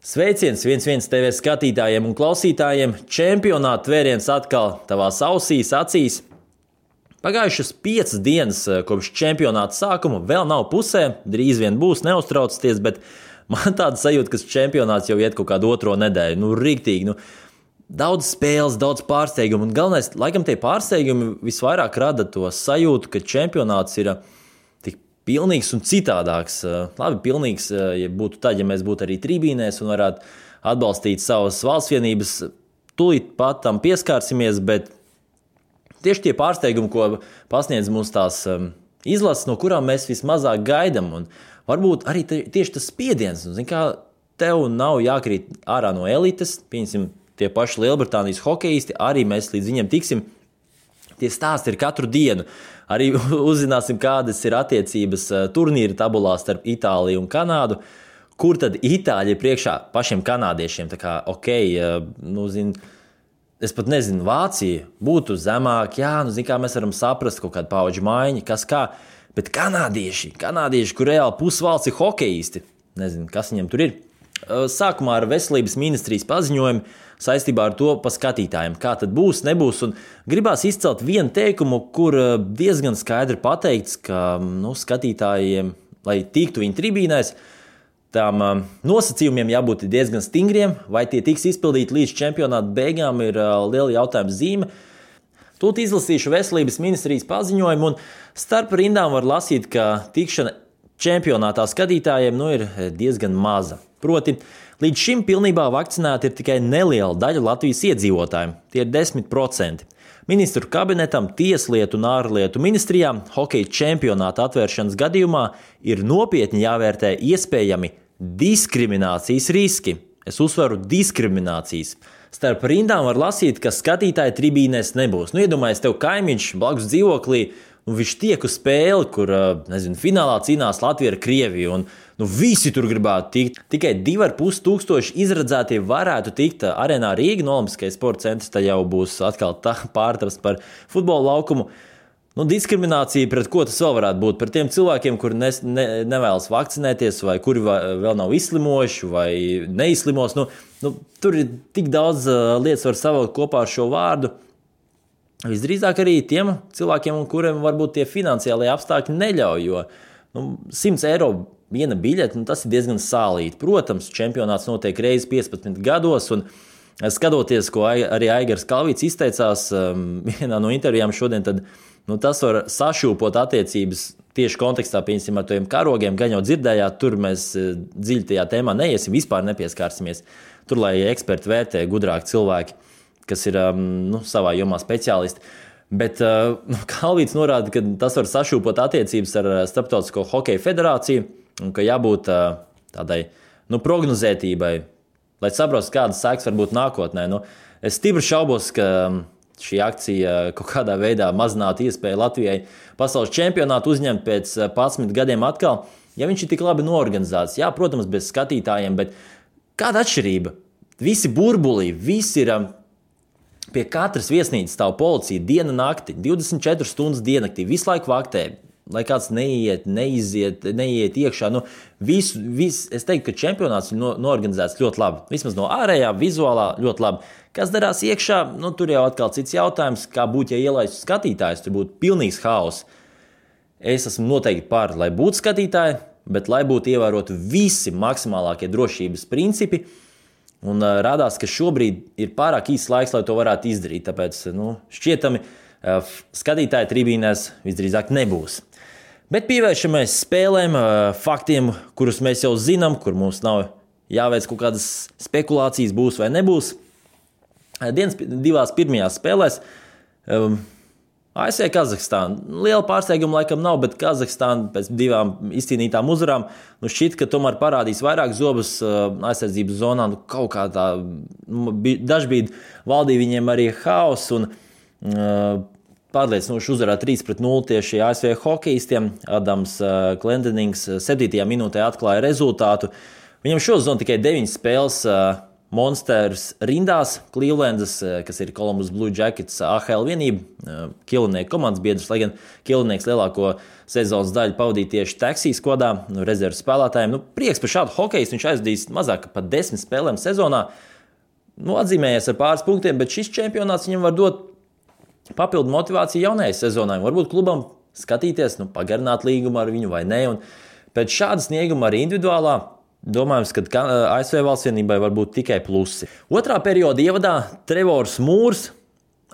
Sveiciens 1-1 TV skatītājiem un klausītājiem. Čempionāta tvēriens atkal tavās ausīs, acīs. Pagājušas 5 dienas kopš čempionāta sākuma, vēl nav pusē, drīz vien būs, neuztraucieties, bet man tāda sajūta, ka čempionāts jau iet kaut kādu otro nedēļu. Riktīgi, daudz spēles, daudz pārsteigumu, un galvenais, laikam tie pārsteigumi visvairāk rada to sajūtu, ka čempionāts ir tik pilnīgs un citādāks. Labi, pilnīgs, ja būtu tad, ja mēs būtu arī tribīnēs un varētu atbalstīt savas valsts vienības, tūlīt pat tam pieskārsimies, bet tieši tie pārsteigumi, ko pasniedz mums tās izlases, no kurām mēs vismazāk gaidām, un varbūt arī tieši tas spiediens, zin kā, tev nav jākrīt ārā no elites, pieņemsim, tie paši Lielbritānijas hokejisti, arī mēs līdz viņiem tiksim. Tie stāsti ir katru dienu. Arī uzzināsim, kādas ir attiecības turnīra tabulā starp Itāliju un Kanādu, kur tad Itāļi ir priekšā pašiem kanādiešiem. Tā kā, es pat nezinu, Vācija būtu zemāk, kā mēs varam saprast kaut kādu paudžu maiņu, kas kā, bet kanādieši, kur reāli pusvalsts ir hokejisti, nezinu, kas viņiem tur ir. Sākumā ar veselības ministrijas paziņojumu saistībā ar to pa skatītājiem, kā tad būs, nebūs, un gribās izcelt vienu teikumu, kur diezgan skaidri pateikts, ka skatītājiem, lai tiktu viņu tribīnēs, tām nosacījumiem jābūt diezgan stingriem, vai tie tiks izpildīti līdz čempionāta beigām ir liela jautājuma zīme. Tūlīt izlasīšu veselības ministrijas paziņojumu, un starp rindām var lasīt, ka tikšana čempionātā skatītājiem ir diezgan maza. Proti, līdz šim pilnībā vakcinēti ir tikai neliela daļa Latvijas iedzīvotājiem, tie ir 10%. Ministru kabinetam, Tieslietu un ārlietu ministrijām hokeja čempionāta atvēršanas gadījumā ir nopietni jāvērtē iespējami diskriminācijas riski. Es uzsveru diskriminācijas. Starp rindām var lasīt, ka skatītāji tribīnēs nebūs. Iedomājies, tev kaimiņš blakus dzīvoklī, viņš tiek uz spēli, kur, finālā cīnās Latvija ar Krieviju, un visi tur gribētu tikt. Tikai 2500 izredzētie varētu tikt arēnā Rīga, Olimpiskais sporta centrs, tad jau būs atkal pārtrasts par futbola laukumu. Diskriminācija pret ko tas vēl varētu būt? Par tiem cilvēkiem, kuri nevēlas vakcinēties, vai kuri vēl nav izslimojuši, vai neizslimos. Tur ir tik daudz lietas var savilkt kopā ar šo vārdu. Visdrīzāk arī tiem cilvēkiem, kuriem varbūt tie finansiālie apstākļi neļauj, jo 100 eiro viena biļete, tas ir diezgan sālīti. Protams, čempionāts notiek reizi 15 gados, un skatoties, ko arī Aigars Kalvīts izteicās vienā no intervijām šodien, tad tas var sašūpot attiecības tieši kontekstā, piemēram, ar tiem karogiem, gan jau dzirdējāt, tur mēs dziļi tajā tēmā neiesim, vispār nepieskārsimies. Tur, lai eksperti vērtē gudrāki cilvēki, kas ir savā jomā speciālisti. Bet Kalvīts norāda, ka tas var sašūpot attiecības ar Starptautisko hokeja federāciju, un ka jābūt tādai prognozētībai, lai saprastu, kādas sekas var būt nākotnē. Es stipri šaubos, ka šī akcija kaut kādā veidā mazinātu iespēju Latvijai pasaules čempionātu uzņemt pēc 11 gadiem atkal, ja viņš ir tik labi noorganizēts. Jā, protams, bez skatītājiem, bet kāda atšķirība? Visi burbulī, visi ir pie katras viesnīcas stāv policija diena nakti, 24 stundas diennaktī, visu laiku vaktē. Lai kāds neiet iekšā. Es teiktu, ka čempionāts ir noorganizēts ļoti labi. Vismaz no ārējā, vizuālā ļoti labi. Kas darās iekšā, tur jau atkal cits jautājums, kā būtu, ja ielaistu skatītājus, tur būtu pilnīgs haoss. Es esmu noteikti par, lai būtu skatītāji, bet lai būtu ievēroti visi maksimālākie drošības principi. Un rādās, ka šobrīd ir pārāk īsts laiks, lai to varētu izdarīt. Tāpēc šķietami skatītāji tribīnēs visdrīzāk nebūs. Bet pievēršamies spēlēm, faktiem, kurus mēs jau zinām, kur mums nav jāveic kaut kādas spekulācijas, būs vai nebūs. Dienas divās pirmajās spēlēs ASV Kazahstāna. Liela pārsteiguma laikam nav, bet Kazahstāna pēc 2 izcīnītām uzvarām šķiet, ka tomēr parādīs vairāk zobus aizsardzības zonā. Kaut kā tā dažbrīd valdīja viņiem arī haoss un pārliecinoši uzvarā 3-0 tieši ASV hokejistiem. Adams Glendenings 7. minūtē atklāja rezultātu. Viņam šo zonu tikai 9 spēles Monsters rindās, Clevelandas, kas ir Columbus Blue Jackets AHL vienība, Killinieku komandas biedrs, lai gan Killinieks lielāko sezonas daļu pavadīja tieši Taxijas kodā, rezerves spēlētājiem. Prieks par šādu hokejistu, viņš aizdīs mazāk par 10 spēlēm sezonā. Atzīmējies ar pāris punktiem, bet šis čempionāts viņam var dot papildu motivāciju jaunajai sezonai. Varbūt klubam skatīties, pagarināt līgumu ar viņu vai ne. Un pēc šāda snieguma arī individuālā domājams, ka ASV valsts vienībai var būt tikai plusi. Otrā perioda ievadā Trevors Mūrs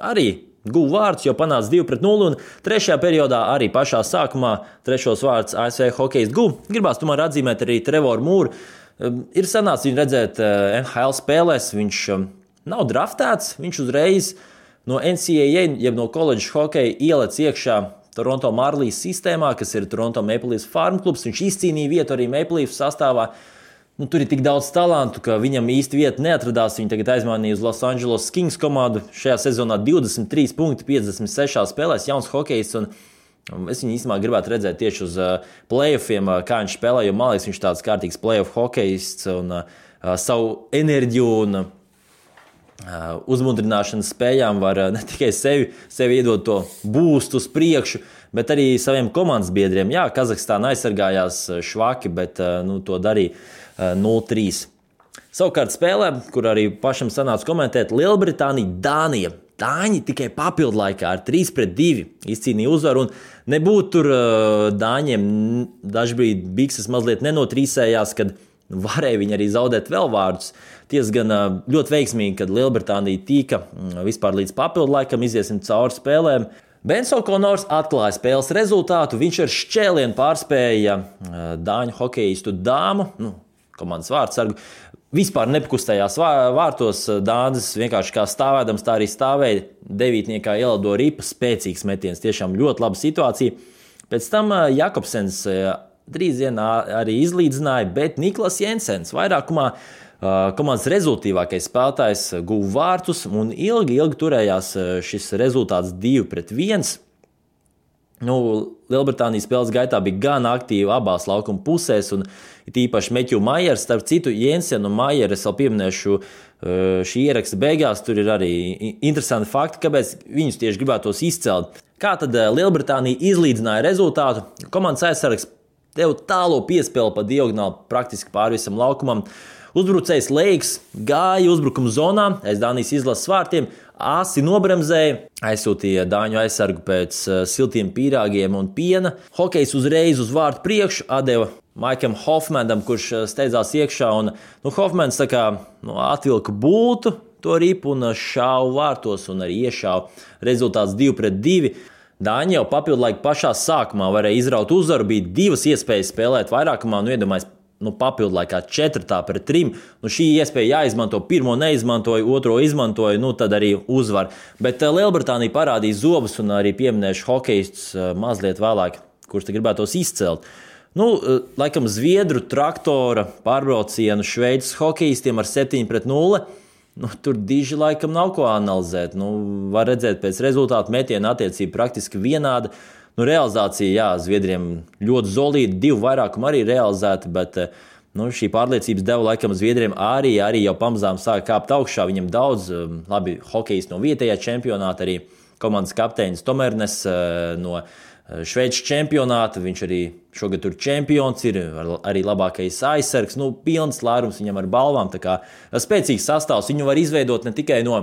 arī guva vārdus, jo panāca 2-0, un trešajā periodā arī pašā sākumā trešos vārdus ASV hokejists guva. Gribās tomēr atzīmēt arī Trevoru Mūru. Ir sanācis viņu redzēt NHL spēlēs, viņš nav draftēts, viņš uzreiz no NCAA, jeb no koledžas hokeja ielec iekšā Toronto Marlies sistēmā, kas ir Toronto Maple Leafs farm klubs. Viņš izcīnīja vietu arī Maple Leafs sastāvā. Tur ir tik daudz talantu, ka viņam īsti vieta neatradās. Viņi tagad aizmainīja uz Los Angeles Kings komandu. Šajā sezonā 23 punkti 56 spēlēs, jauns hokejists. Es viņu īstenībā gribētu redzēt tieši uz playoffiem, kā viņš spēlē, jo man liekas, viņš tāds kārtīgs playoff hokejists un savu enerģiju un uzmundrināšanas spējām var ne tikai sevi iedot to boostu uz priekšu, bet arī saviem komandas biedriem. Jā, Kazahstāna aizsargājās švaki, bet to darīja 0-3. Savukārt spēlē, kur arī pašam sanāca komentēt, Lielbritānija, Dānija. Dāņi tikai papildu laikā ar 3-2 izcīnīja uzvaru, un nebūtu tur Dāņiem dažbrīd bikses mazliet nenotrīsējās, kad varēja viņi arī zaudēt vēl vārdus. Tiesa gan ļoti veiksmīgi, kad Lielbritānija tika vispār līdz papildu laikam, iziesim cauri spēlēm. Bens O'Connors atklāja spēles rezultātu, viņš ar šķēlienu pārspēja Dāņu hokejistu Dāmu, komandas vārdsargu. Vispār nepakustējās vārtos, Dānis vienkārši kā stāvēdams, tā arī stāvēja. Devītniekā ielido ripa, spēcīgs metiens, tiešām ļoti laba situācija. Pēc tam Jakobsens drīz vien arī izlīdzināja, bet Niklas Jensens vairākumā komandas rezultīvākais spēlētājs guva vārtus un ilgi turējās šis rezultāts 2-1. Lielbritānijas spēles gaitā bija gan aktīva abās laukuma pusēs, un it īpaši Matthew Myers, starp citu Jensenu un Myeru es vēl pieminēšu šī ieraksta beigās, tur ir arī interesanti fakti, kāpēc viņus tieši gribētos izcelt. Kā tad Lielbritānija izlīdzināja rezultātu? Komandas aizsargs deva tālo piespēli pa diagonāli praktiski pāri visam laukumam. Uzbrucējs Leiks gāja uzbrukuma zonā aiz Dānijas izlases vārtiem, asi nobremzēja, aizsūtīja Dāņu aizsargu pēc siltiem pīrāgiem un piena. Hokejs uzreiz uz vārtu priekšu atdeva Maikam Hofmanam, kurš steidzās iekšā, un Hofmans atvilka bultu to ripu un šāva vārtos un arī iešāva. Rezultāts 2-2. Dāņi jau papildu laiku pašā sākumā varēja izraut uzvaru, bija divas iespējas spēlēt vairākumā, iedomājies, papildu laikā 4-3. Šī iespēja jāizmanto, pirmo neizmantoja, otro izmantoja, tad arī uzvar. Bet Lielbritānija parādīja zobus un arī pieminēšu hokejistus mazliet vēlāk, kurš te gribētos izcelt. Laikam Zviedru traktora pārbraucienu Šveices hokejistiem ar 7-0. Tur diži laikam nav ko analizēt. Var redzēt pēc rezultātu metiena attiecība praktiski vienāda. Realizācija, jā, Zviedriem ļoti zolīta, 2 vairākumi arī realizēti, bet šī pārliecības deva laikam Zviedriem arī jau pamazām sāka kāpt augšā. Viņam daudz labi hokejisti no vietējā čempionāta, arī komandas kapteinis Tomernes no Šveices čempionāta, viņš arī šogad tur čempions ir, arī labākais aizsargs, pilns lērums viņam ar balvām, tā kā spēcīgs sastāvs. Viņu var izveidot ne tikai no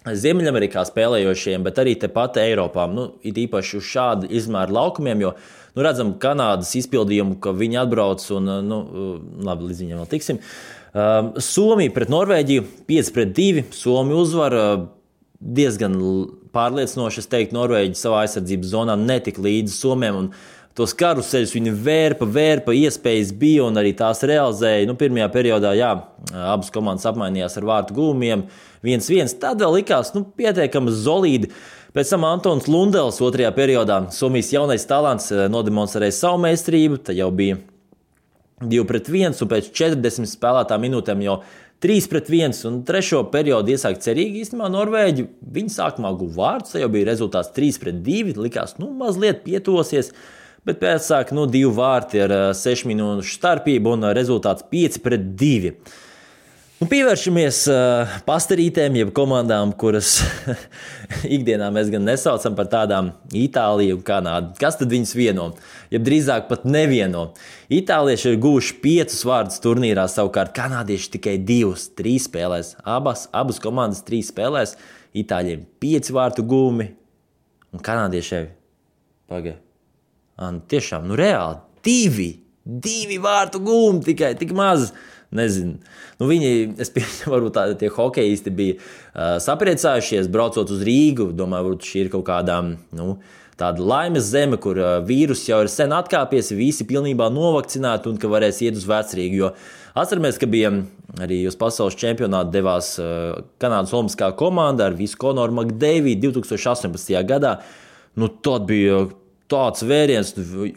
Ziemeļamerikā spēlējošiem, bet arī tepat Eiropā. It īpaši uz šādu izmēru laukumiem, jo redzam Kanādas izpildījumu, ka viņi atbrauc un, labi, līdz viņiem vēl tiksim. Somija pret Norvēģiju 5-2, Somija uzvar diezgan pārliecinoši, es teiktu, Norvēģi savā aizsardzības zonā netika līdzi Somiem, un tos karuseļus viņi vērpa, iespējas bija un arī tās realizēja. Pirmajā periodā, jā, abas komandas apmainījās ar vārtu gūmiem 1-1. Tad vēl likās, pietiekami solīdi. Pēc tam Antons Lundels otrajā periodā Somijas jaunais talants nodemonstrēja savu meistarību, tad jau bija 2-1 un pēc 40 spēlētām minūtēm jau 3-1 un trešo periodu iesāk cerīgi. Īstenībā Norvēģi, viņi sākumā guva vārdus, tad jau bija rezultāts 3-2, likās, mazliet pietosies. Bet pēc sāk 2 vārti ar 6 minūšu starpību un rezultāts 5-2. Pievēršamies pastarītēm, jeb komandām, kuras ikdienā mēs gan nesaucam par tādām Itāliju un Kanādu. Kas tad viņus vieno? Jeb drīzāk pat nevieno. Itālieši ir guvuši 5 vārdus turnīrā, savukārt kanādieši tikai 2, 3 spēlēs. Abas komandas 3 spēlēs. Itāļiem 5 vārtu gūmi un kanādiešiem tiešām, reāli 2 vārtu gūmi tikai, tik maz. Nezinu. Viņi, es pieņemu, varbūt tie hokejisti bija sapriecājušies, braucot uz Rīgu. Domāju, varbūt šī ir kaut kādā, tāda laimes zeme, kur vīrus jau ir sen atkāpies, visi pilnībā novakcinēti un ka varēs iet uz Vecrīgu. Jo atceramies, ka bija arī uz pasaules čempionātu devās Kanādas olimpiskā komanda ar visu Konoru Makdeividu 2018. gadā. Tad bija tāds vēriens,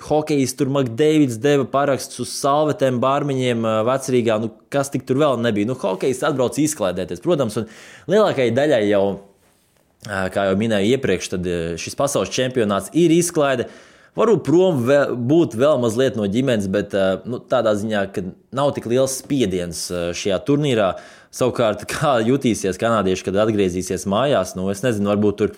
hokejists tur Makdeivids deva parakstus uz salvetēm, bārmiņiem Vecrīgā, kas tik tur vēl nebija. Hokejists atbrauc izklaidēties, protams, un lielākajai daļai jau, kā jau minēju iepriekš, tad šis pasaules čempionāts ir izklaide. Varbūt prom būt vēl mazliet no ģimenes, bet tādā ziņā, ka nav tik liels spiediens šajā turnīrā. Savukārt, kā jutīsies kanādieši, kad atgriezīsies mājās, es nezinu, varbūt tur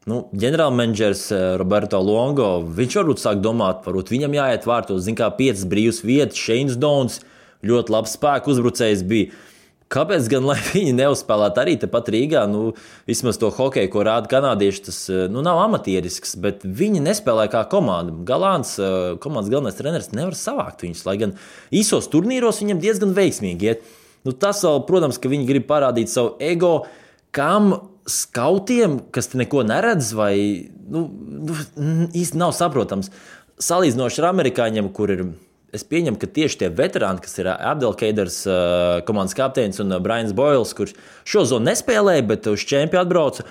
ģenerālmenedžers Roberto Longo, viņš varbūt sāk domāt, varbūt viņam jāiet vārtos, 5 brīvas vietas, Shanes Downs, ļoti labs spēku uzbrucējs bija. Kāpēc gan, lai viņi neuzspēlētu arī tepat Rīgā? Vismaz to hokeju, ko rāda kanādieši, tas nav amatierisks, bet viņi nespēlē kā komanda. Galants, komandas galvenais treneris, nevar savākt viņus, lai gan īsos turnīros viņam diezgan veiksmīgi iet. Tas vēl, protams, ka viņi grib parādīt savu ego, kam skautiem, kas te neko neredz, vai īsti nav saprotams. Salīdzinoši ar amerikāņiem, kur ir, es pieņemu, ka tieši tie veterāni, kas ir Abdelkeiders, komandas kapteinis un Brians Boyles, kurš šo zonu nespēlēja, bet uz čempi atbrauca,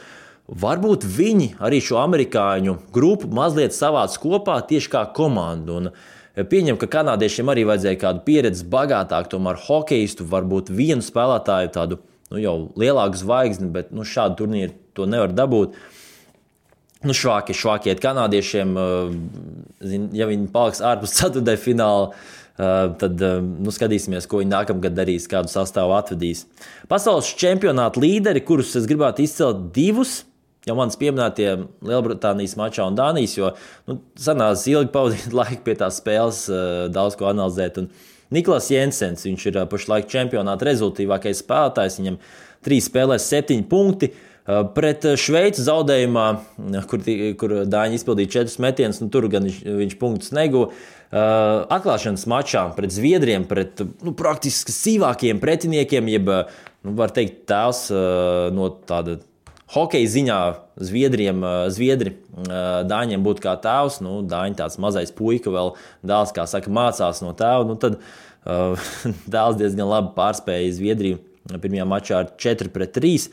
varbūt viņi arī šo amerikāņu grupu mazliet savāc kopā tieši kā komandu. Un pieņemu, ka kanādiešiem arī vajadzēja kādu pieredzi bagātāk, tomēr hokejistu, varbūt vienu spēlētāju tādu jau lielāku zvaigzni, bet šādu turnīru to nevar dabūt. Švāki iet kanādiešiem, ja viņi paliks ārpus ceturtajā fināla, tad skatīsimies, ko viņi nākamgad darīs, kādu sastāvu atvedīs. Pasaules čempionāta līderi, kurus es gribētu izcelt 2, jau manis pieminētie Lielbritānijas mačā un Dānijas, jo sanās ilgi pavadīt laiku pie tās spēles, daudz ko analizēt. Un Niklas Jensens, viņš ir pašlaik čempionāta rezultātīvākais spēlētājs, viņam 3 spēlēs 7 punkti. Pret Šveici zaudējumā, kur Dāņi izpildīja 4 metienus, tur gan viņš punktus neguva. Atklāšanas mačā pret Zviedriem, pret praktiski sīvākiem pretiniekiem, jeb, var teikt, tēls no tāda hokeja ziņā Zviedri Dāņiem būtu kā tēvs, Dāņi tāds mazais puika vēl dēls, kā saka, mācās no tēva, tad dēls diezgan labi pārspēja Zviedriju pirmajā mačā ar 4-3.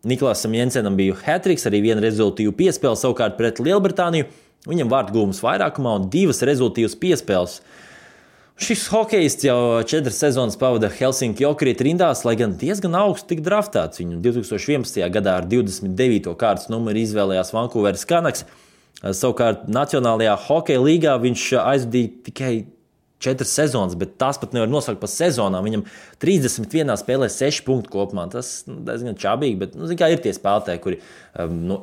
Niklasam Jensenam bija hat-triks, arī viena rezultīva piespēle, savukārt pret Lielbritāniju viņam vārtu gūmas vairākumā un 2 rezultīvas piespēles. Šis hokejists jau 4 sezonas pavada Helsinki Jokerit rindās, lai gan diezgan augstu tika draftēts. Viņu 2011. gadā ar 29. kārtas numuru izvēlējās Vancouveras Canucks. Savukārt Nacionālajā hokeja līgā viņš aizvadīja tikai 4 sezonas, bet tās pat nevar nosaukt par sezonām. Viņam 31 spēlē 6 punktu kopumā. Tas diezgan čābīgi, bet ir tie spēlētāji, kuri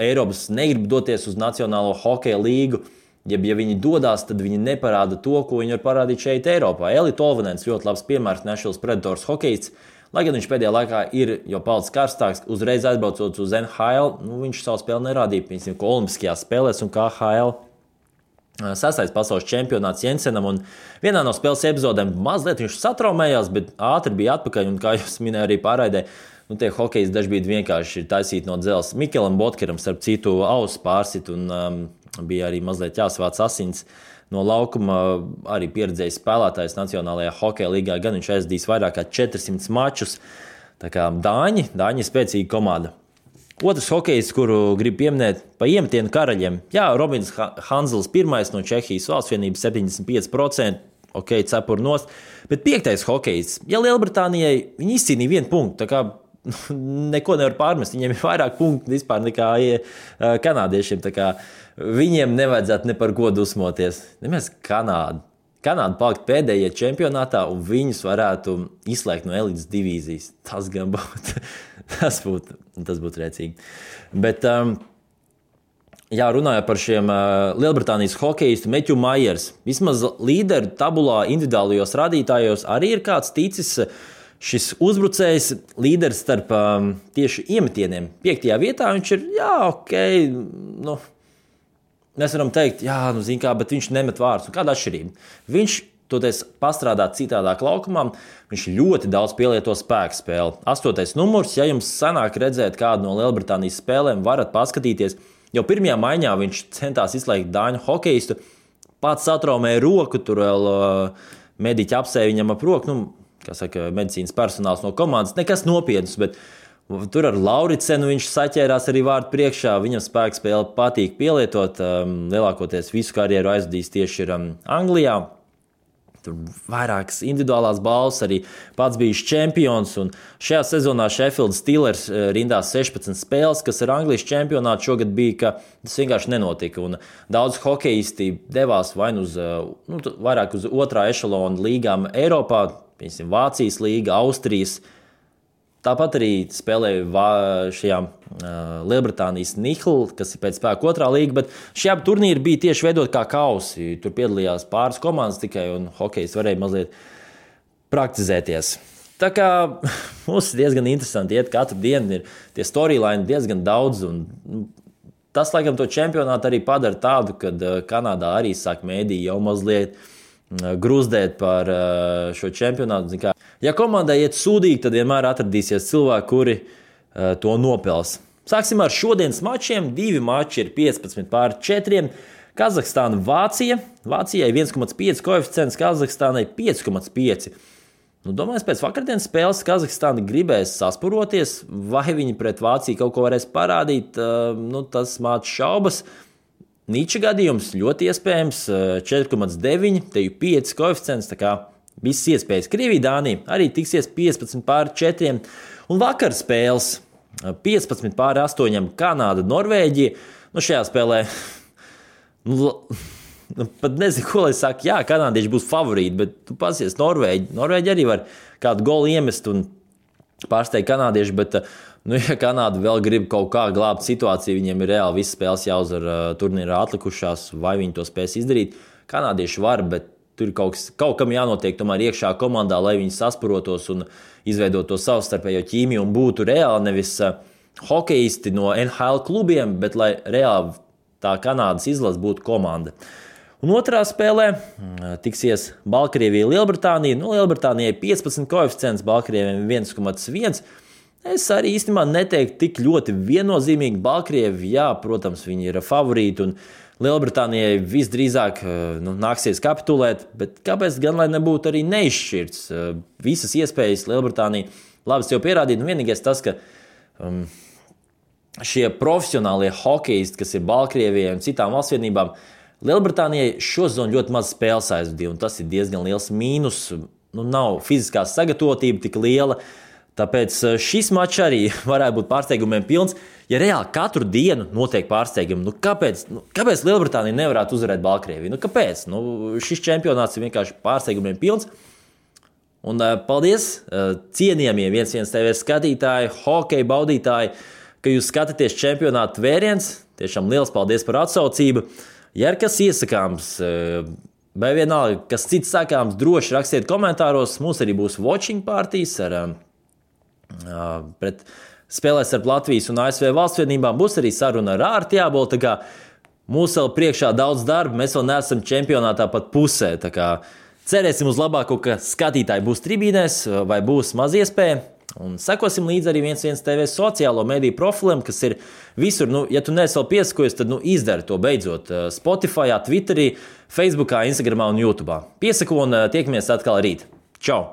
Eiropas negrib doties uz Nacionālo hokeja līgu. Ja viņi dodas, tad viņi neparāda to, ko viņi var parādīt šeit Eiropā. Eli Tolvanens ļoti labs piemērs, Nashville Predators hokejists. Lai gan viņš pēdējā laikā ir jau palicis karstāks, uzreiz atbraucot uz NHL, viņš savu spēli nerādīja, piemēram, ko olimpiskajās spēlēs un KHL. 6. pasaules čempionāts Jensenam, un vienā no spēles epizodēm mazliet viņš satraumējās, bet ātri bija atpakaļ, un kā jūs minēja arī pārraidē, tie hokejisti dažkārt vienkārši ir taisīti no dzelzs. Mikelam Botkeram, starp citu, auss pārsit, un bija arī mazliet jāsavāc asins no laukuma. Arī pieredzējis spēlētājs Nacionālajā hokeja līgā, gan viņš aizdīs vairāk kā 400 mačus. Tā kā Dāņi ir spēcīga komanda. Otrs hokejs, kuru gribu pieminēt, pa iemetienu karaļiem. Jā, Robins Hanzels pirmais no Čehijas valsts vienības 75%, cepur nost. Bet 5. hokejs, ja Lielbritānijai viņi izcīnīja 1 punktu, tā kā neko nevar pārmest, viņiem ir vairāk punktu vispār nekā kanādiešiem, tā kā viņiem nevajadzētu ne par ko dusmoties. Nemaz Kanāda. Kanāda palikt pēdējie čempionātā un viņus varētu izslēgt no elites divīzijas. Tas gan būtu, tas būtu rēcīgi. Bet, jā, runājot par šiem Lielbritānijas hokeistu Matthew Myers, vismaz līderu tabulā individuālajos rādītājos arī ir kāds ticis šis uzbrucējs līderis starp tieši iemetieniem. 5. vietā viņš ir, jā, ok, nu, mēs varam teikt, jā, nu, zin kā, bet viņš nemet vārdus. Kāda atšķirība? Viņš toties pastrādāt citādāk laukumā, viņš ļoti daudz pielieto spēku spēli. 8. numurs, ja jums sanāk redzēt kādu no Lielbritānijas spēlēm, varat paskatīties. Jau pirmajā maiņā viņš centās izslēgt dāņu hokeistu, pats satraumēja roku, tur vēl mediķi apsēja viņam ap roku, nu, kā saka, medicīnas personāls no komandas, nekas nopietns, bet tur ar Lauricenu viņš saķērās arī vārdu priekšā, viņam spēku spēli patīk pielietot, lielākoties visu karjeru aizvadījis tieši ir Anglijā. Tur vairākas individuālās balvas, arī pats bijis čempions, un šajā sezonā Sheffield Steelers rindās 16 spēles, kas ar Anglijas čempionātu šogad bija, ka tas vienkārši nenotika, un daudz hokeisti devās vai nu vairāk uz otrā ešalona līgām Eiropā, piemēram, Vācijas līga, Austrijas. Tāpat arī spēlēja šajā Lielbritānijas Nihla, kas ir pēc spēka otrā līga, bet šie abi turnīri bija tieši veidot kā kausi. Tur piedalījās pāris komandas tikai, un hokejs varēja mazliet praktizēties. Tā kā mums diezgan interesanti iet katru dienu, ir tie storyline diezgan daudz, un tas, laikam, to čempionātu arī padara tādu, kad Kanādā arī sāk mēdī jau mazliet gruzdēt par šo čempionātu. Ja komandai iet sūdīgi, tad vienmēr atradīsies cilvēki, kuri to nopels. Sāksim ar šodienas mačiem. 2 mači ir 15-4. Kazahstāna, Vācija. Vācijai 1,5 koeficients, Kazahstānai 5,5. Nu, domāju, pēc vakardienas spēles Kazahstāna gribēs saspuroties, vai viņi pret Vāciju kaut ko varēs parādīt. Nu, tas māc šaubas. Nīča gadījums ļoti iespējams 4,9, te ir 5 koeficients, tā kā visas iespējas. Krievija, Dānija arī tiksies 15-4. Un vakar spēles 15-8, Kanāda, Norvēģija. Nu, šajā spēlē pat nezinu, ko lai saka. Jā, kanādieši būs favorīti, bet tu pasies Norvēģi. Norvēģi arī var kādu golu iemest un pārsteigt kanādieši, bet nu, ja Kanāda vēl grib kaut kā glābt situāciju, viņiem ir reāli visas spēles jāuzvar turnīrā atlikušās, vai viņi to spēs izdarīt. Kanādieši var, bet tur ir kaut kam jānotiek tomēr iekšā komandā, lai viņi saspurotos un izveidot to savstarpējo ķīmiju un būtu reāli nevis hokeisti no NHL klubiem, bet lai reāli tā Kanādas izlase būtu komanda. Un otrā spēlē tiksies Baltkrievija, Lielbritānija. Nu, Lielbritānijai 15 koeficients, Baltkrievijai 1,1. Es arī īstenībā neteiktu tik ļoti viennozīmīgi. Baltkrievi, jā, protams, viņi ir favorīti un Lielbritānijai visdrīzāk nāksies kapitulēt, bet kāpēc gan lai nebūtu arī neizšķirts? Visas iespējas Lielbritānija labi jau pierādīt. Vienīgais tas, ka šie profesionālie hokeisti, kas ir Baltkrievijai un citām valstsvienībām, Lielbritānijai šo sezonu ļoti maz spēles aizvadīja, un tas ir diezgan liels mīnus. Nu, nav fiziskā sagatavotība tik liela. Tāpēc šis mačs arī varētu būt pārsteigumiem pilns. Ja reāli katru dienu notiek pārsteigumi, kāpēc Lielbritānija nevarētu uzvarēt Baltkrieviju? Kāpēc? Šis čempionāts ir vienkārši pārsteigumiem pilns. Un paldies cienījamie 1-1 TV skatītāji, hokeja baudītāji, ka jūs skatāties čempionāta vēriens. Tiešām liels paldies par atsaucību. Ja ir kas iesakāms, vai vienalga, kas cits sakāms, droši rakstiet komentāros. Mums arī būs watching partijas pret spēlēs ar Latvijas un ASV valstsvienībām. Būs arī saruna ar Ārti Jābolu, tā kā mums vēl priekšā daudz darba, mēs vēl neesam čempionātā pat pusē, tā kā cerēsim uz labāko, ka skatītāji būs tribīnēs vai būs maz iespēja. Un sekosim līdzi arī 1-1 TV sociālo mediju profiliem, kas ir visur. Ja tu neesi vēl piesakojies, tad izdari to beidzot Spotify, Twitterī, Facebookā, Instagramā un YouTube. Piesako un tiekamies atkal rīt. Čau!